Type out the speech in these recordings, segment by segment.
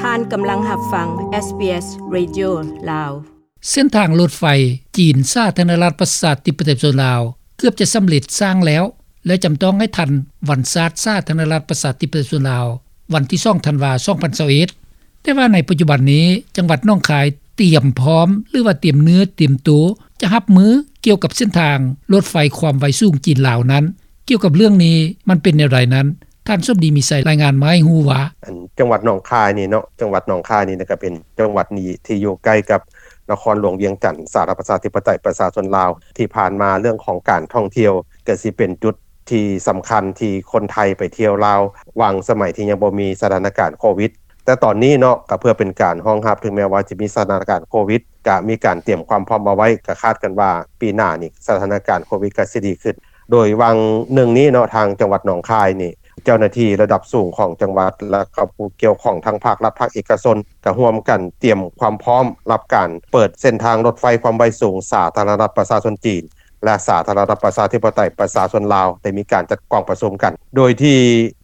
ທ່ານກຳລັງຮັບຟັງ ເອສບີເອສ Radio ລາວ. ເສັ້ນທາງລົດໄຟຈີນ ສາທາລະນະລັດ ປະຊາທິປະໄຕ ປະຊາຊົນລາວ ເກືອບຈະສຳເລັດສ້າງແລ້ວ ແລະ ຈຳຕ້ອງໃຫ້ທັນວັນຊາດ ສາທາລະນະລັດ ປະຊາທິປະໄຕ ປະຊາຊົນລາວ ວັນທີສອງ ທັນວາ ສອງພັນຊາວເອັດ. ແຕ່ວ່າໃນປັດຈຸບັນນີ້ ຈັງຫວັດໜອງຄາຍຕຽມພ້ອມ ຫຼືວ່າຕຽມເນື້ອຕຽມໂຕ ຈະຮັບມືກ່ຽວກັບເສັ້ນທາງລົດໄຟຄວາມໄວສູງຈີນລາວນັ້ນ. ກ່ຽວກັບເລື່ອງນີ້ ມັນເປັນແນວໃດນັ້ນ ທ່ານສົມດີ ມີໄຊ ລາຍງານມາໃຫ້ຮູ້ວ່າ ອັນ ຈັງຫວັດໜອງຄາຍນີ້ເນາະ ຈັງຫວັດໜອງຄາຍນີ້ນະ ກະເປັນຈັງຫວັດນີ້ທີ່ຢູ່ໃກ້ກັບນະຄອນຫຼວງວຽງຈັນ ສາທາລະນະລັດ ປະຊາທິປະໄຕ ປະຊາຊົນລາວ. ທີ່ຜ່ານມາເລື່ອງຂອງການທ່ອງທ່ຽວ ກະຊິເປັນຈຸດທີ່ສຳຄັນທີ່ຄົນໄທໄປທ່ຽວລາວ ຫວ່າງສະໄໝທີ່ຍັງບໍ່ມີສະຖານະການໂຄວິດ. ແຕ່ຕອນນີ້ເນາະ ກະເພື່ອເປັນການຮອງຮັບ ເຖິງແມ່ນວ່າຈະມີສະຖານະການໂຄວິດ ກະມີການຕຽມຄວາມພ້ອມເອົາໄວ້ ກະຄາດກັນວ່າປີໜ້ານີ້ ສະຖານະການໂຄວິດກະຊິດີຂຶ້ນ. ໂດຍຫວ່າງໜຶ່ງນີ້ເນາະ ທາງຈັງຫວັດໜອງຄາຍນີ້ ເຈົ້າໜ້າທີ່ລະດັບສູງຂອງຈັງຫວັດ ແລະ ກະຜູ້ກ່ຽວຂ້ອງທັງພາກລັດ ພາກເອກະຊົນ ກະຮ່ວມກັນຕຽມຄວາມພ້ອມຮັບການເປີດເສັ້ນທາງລົດໄຟຄວາມໄວສູງ ສາທາລະນະລັດ ປະຊາຊົນຈີນ ແລະ ສາທາລະນະລັດ ປະຊາທິປະໄຕ ປະຊາຊົນລາວ ໄດ້ມີການຈັດກອງປະຊຸມກັນ ໂດຍທີ່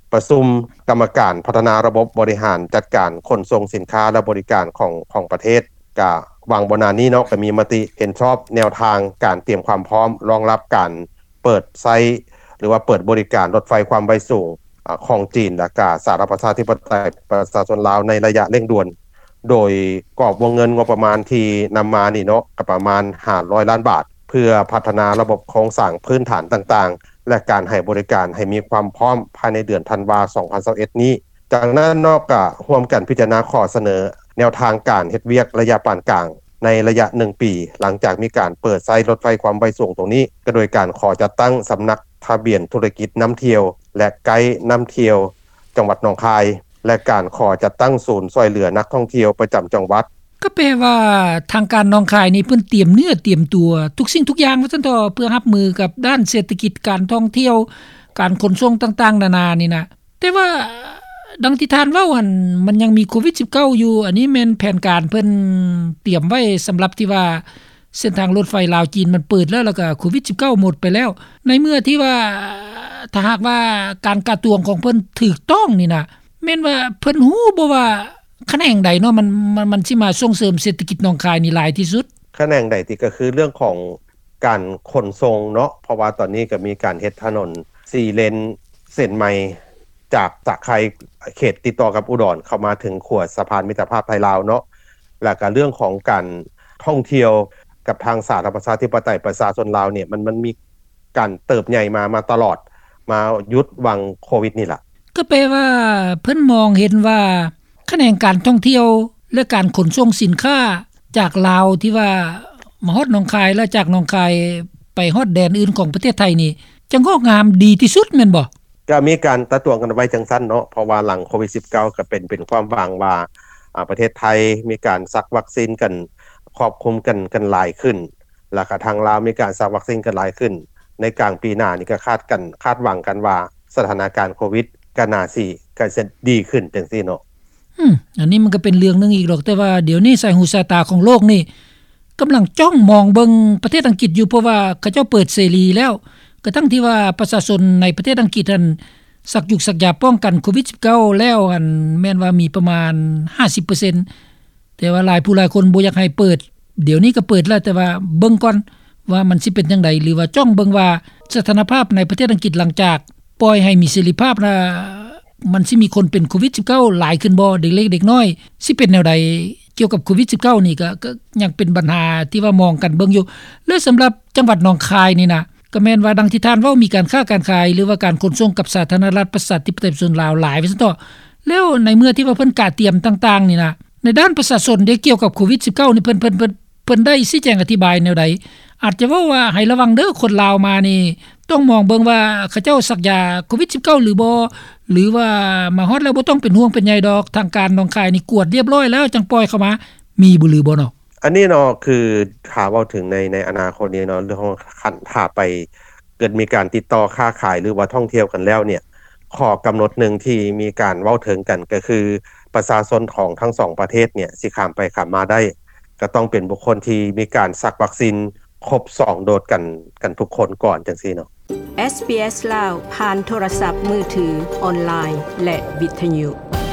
ປະຊຸມກຳມະການພັດທະນາລະບົບບໍລິຫານຈັດການຂົນສົ່ງສິນຄ້າ ແລະ ບໍລິການຂອງ ຂອງປະເທດ ກະຫວ່າງບໍ່ນານນີ້ເນາະ ກະມີມະຕິເຫັນຊອບແນວທາງການຕຽມຄວາມພ້ອມຮອງຮັບການເປີດໃຊ້ ຫຼືວ່າເປີດບໍລິການລົດໄຟຄວາມໄວສູງ ອາ ຂອງຈີນ ແລະ ກະສາທາລະນະລັດ ປະຊາທິປະໄຕ ປະຊາຊົນລາວ ໃນໄລຍະເລັ່ງດ່ວນ. ໂດຍກອບວົງເງິນງົບປະມານທີ່ນຳມານີ້ເນາະ ກະປະມານຫ້າຮ້ອຍລ້ານບາດ ເພື່ອພັດທະນາລະບົບໂຄງສ້າງພື້ນຖານຕ່າງໆ ແລະ ການໃຫ້ບໍລິການໃຫ້ມີຄວາມພ້ອມພາຍໃນເດືອນທັນວາ ສອງພັນຊາວເອັດນີ້. ຈາກນັ້ນເນາະ ກະຮ່ວມກັນພິຈາລະນາຂໍ້ສະເໜີແນວທາງການເຮັດວຽກໄລຍະປານກາງ ໃນໄລຍະໜຶ່ງປີ ຫຼັງຈາກມີການເປີດໃຊ້ລົດໄຟຄວາມໄວສູງຕົງນີ້ ກະໂດຍການຂໍຈັດຕັ້ງສຳນັກທະບຽນທຸລະກິດນຳທ່ຽວ ແລະ ໄກນຳທ່ຽວ ຈັງຫວັດໜອງຄາຍ ແລະ ການຂໍຈັດຕັ້ງສູນຊ່ວຍເຫຼືອນັກທ່ອງທ່ຽວປະຈຳຈັງຫວັດ. ກະແປວ່າທາງການໜອງຄາຍນີ້ເພິ່ນຕຽມເນື້ອຕຽມຕົວທຸກສິ່ງທຸກຢ່າງວ່າຊັ້ນເຖາະ ເພື່ອຮັບມືກັບດ້ານເສດຖະກິດ ການທ່ອງທ່ຽວ ການຂົນສົ່ງຕ່າງໆນານານີ້ນະ. ແຕ່ວ່າ ດັ່ງທີ່ທ່ານເວົ້າຫັ້ນ ມັນຍັງມີໂຄວິດສິບເກົ້າຢູ່ ອັນນີ້ແມ່ນແຜນການເພິ່ນຕຽມໄວ້ສຳລັບທີ່ວ່າ ເສັ້ນທາງລົດໄຟລາວຈີນມັນເປີດແລ້ວ ແລ້ວກະໂຄວິດສິບເກົ້າໝົດໄປແລ້ວ. ໃນເມື່ອທີ່ວ່າ ຖ້າຫາກວ່າການກະຕວງຂອງເພິ່ນຖືກຕ້ອງນີ້ນະ ແມ່ນວ່າເພິ່ນຮູ້ບໍ່ວ່າຂະແໜງໃດເນາະ ມັນ ມັນ ມັນຊິມາສົ່ງເສີມເສດຖະກິດໜອງຄາຍນີ້ຫຼາຍທີ່ສຸດ? ຂະແໜງໃດຕິ ກະຄືເລື່ອງຂອງການຂົນສົ່ງເນາະ ເພາະວ່າຕອນນີ້ກະມີການເຮັດຖະໜົນສີ່ເລນ ເສັ້ນໃໝ່ ຈາກສະໄຄ ເຂດຕິດຕໍ່ກັບອຸດອນ ເຂົ້າມາເຖິງຂົວສະພານມິດຕະພາບໄທລາວເນາະ ແລ້ວກະເລື່ອງຂອງການທ່ອງທ່ຽວກັບທາງສາທາລະນະລັດ ປະຊາທິປະໄຕ ປະຊາຊົນລາວນີ້ ມັນ ມັນມີການເຕີບໃຫຍ່ມາ ມາຕະຫຼອດ ມາຢຸດຫວ່າງໂຄວິດນີ້ລະ. ກະແປວ່າເພິ່ນມອງເຫັນວ່າ ຂະແໜງການທ່ອງທ່ຽວ ແລະ ການຂົນສົ່ງສິນຄ້າຈາກລາວທີ່ວ່າມາຮອດໜອງຄາຍ ແລະ ຈາກໜອງຄາຍໄປຮອດແດນອື່ນຂອງປະເທດໄທນີ້ ຈະງອກງາມດີທີ່ສຸດແມ່ນບໍ່? ກະມີການຕາຕວງກັນໄວ້ຈັ່ງຊັ້ນເນາະ ເພາະວ່າຫຼັງໂຄວິດສິບເກົ້າ ກະເປັນ ເປັນຄວາມຫວັງວ່າ ອາ ປະເທດໄທມີການສັກວັກຊີນກັນ ຄອບຄຸມກັນ ກັນຫຼາຍຂຶ້ນ ແລ້ວກະທາງລາວມີການສັກວັກຊີນກັນຫຼາຍຂຶ້ນ ໃນກາງປີໜ້ານີ້ກະຄາດກັນ ຄາດຫວັງກັນວ່າສະຖານະການໂຄວິດກະໜ້າຊິ ກະຊິດີຂຶ້ນຈັ່ງຊີ້ເນາະ. ອືມ ອັນນີ້ມັນກະເປັນເລື່ອງໜຶ່ງອີກດອກ ແຕ່ວ່າດຽວນີ້ສາຍຫູສາຍຕາຂອງໂລກນີ້ກຳລັງຈ້ອງມອງເບິ່ງປະເທດອັງກິດຢູ່ ເພາະວ່າເຂົາເຈົ້າເປີດເສລີແລ້ວ ກະທັງທີ່ວ່າປະຊາຊົນໃນປະເທດອັງກິດຫັ້ນ ສັກຢູກສັກຢາປ້ອງກັນໂຄວິດສິບເກົ້າແລ້ວ ອັນ ແມ່ນວ່າມີປະມານຫ້າສິບເປີເຊັນ ແຕ່ວ່າຫຼາຍຜູ້ຫຼາຍຄົນບໍ່ຢາກໃຫ້ເປີດ ດຽວນີ້ກະເປີດແລ້ວ ແຕ່ວ່າເບິ່ງກ່ອນວ່າມັນຊິເປັນຈັ່ງໃດ ຫຼືວ່າຈ້ອງເບິ່ງວ່າສະຖານະພາບໃນປະເທດອັງກິດ ຫຼັງຈາກປ່ອຍໃຫ້ມີເສລີພາບລະ ມັນຊິມີຄົນເປັນໂຄວິດສິບເກົ້າຫຼາຍຂຶ້ນບໍ່ ເດັກເລັກເດັກນ້ອຍຊິເປັນແນວໃດ ກ່ຽວກັບໂຄວິດສິບເກົ້ານີ້ກະ ກະຍັງເປັນບັນຫາທີ່ວ່າມອງກັນເບິ່ງຢູ່. ແລະ ສຳລັບຈັງຫວັດໜອງຄາຍນີ້ນະ ກະແມ່ນວ່າດັ່ງທີ່ທ່ານເວົ້າ ມີການຄ້າການຂາຍ ຫຼືວ່າການຂົນສົ່ງກັບສາທາລະນະລັດ ປະຊາທິປະໄຕ ປະຊາຊົນລາວຫຼາຍວ່າຊັ້ນເຖາະ. ແລ້ວໃນເມື່ອທີ່ວ່າເພິ່ນກະຕຽມຕ່າງໆນີ້ນະ ໃນດ້ານປະຊາຊົນເດ້ ກ່ຽວກັບໂຄວິດສິບເກົ້ານີ້ ເພິ່ນ ເພິ່ນ ເພິ່ນ ເພິ່ນໄດ້ຊີ້ແຈງອະທິບາຍແນວໃດ? ອາດຈະເວົ້າວ່າໃຫ້ລະວັງເດີ ຄົນລາວມານີ້ ຕ້ອງມອງເບິ່ງວ່າເຂົາເຈົ້າສັກຢາໂຄວິດສິບເກົ້າຫຼືບໍ່ ຫຼືວ່າມາຮອດແລ້ວບໍ່ຕ້ອງເປັນຫ່ວງເປັນໃຍດອກ ທາງການໜອງຄາຍນີ້ກວດລຽບລ້ອຍແລ້ວຈັ່ງປ່ອຍເຂົ້າມາ ມີບໍ່ ຫຼືບໍ່ເນາະ? ອັນນີ້ເນາະ ຄືຖ້າເວົ້າເຖິງໃນ ໃນອະນາຄົດນີ້ເນາະ ເລື່ອງຂອງຄັນຖ້າໄປເກີດມີການຕິດຕໍ່ຄ້າຂາຍ ຫຼືວ່າທ່ອງທ່ຽວກັນແລ້ວເນ່ຍ ຂໍ້ກຳນົດໜຶ່ງທີ່ມີການເວົ້າເຖິງກັນກະຄື ປະຊາຊົນຂອງທັງສອງປະເທດເນ່ຍ ຊິຂ້າມໄປຂ້າມມາໄດ້ ກະຕ້ອງເປັນບຸກຄົນທີ່ມີການສັກວັກຊີນຄົບສອງໂດສກັນ ກັນທຸກຄົນກ່ອນ ຈັ່ງຊີ້ເນາະ. ເອສບີເອສ ລາວ ຜ່ານໂທລະສັບມືຖື, ອອນລາຍ ແລະ ວິທະຍຸ.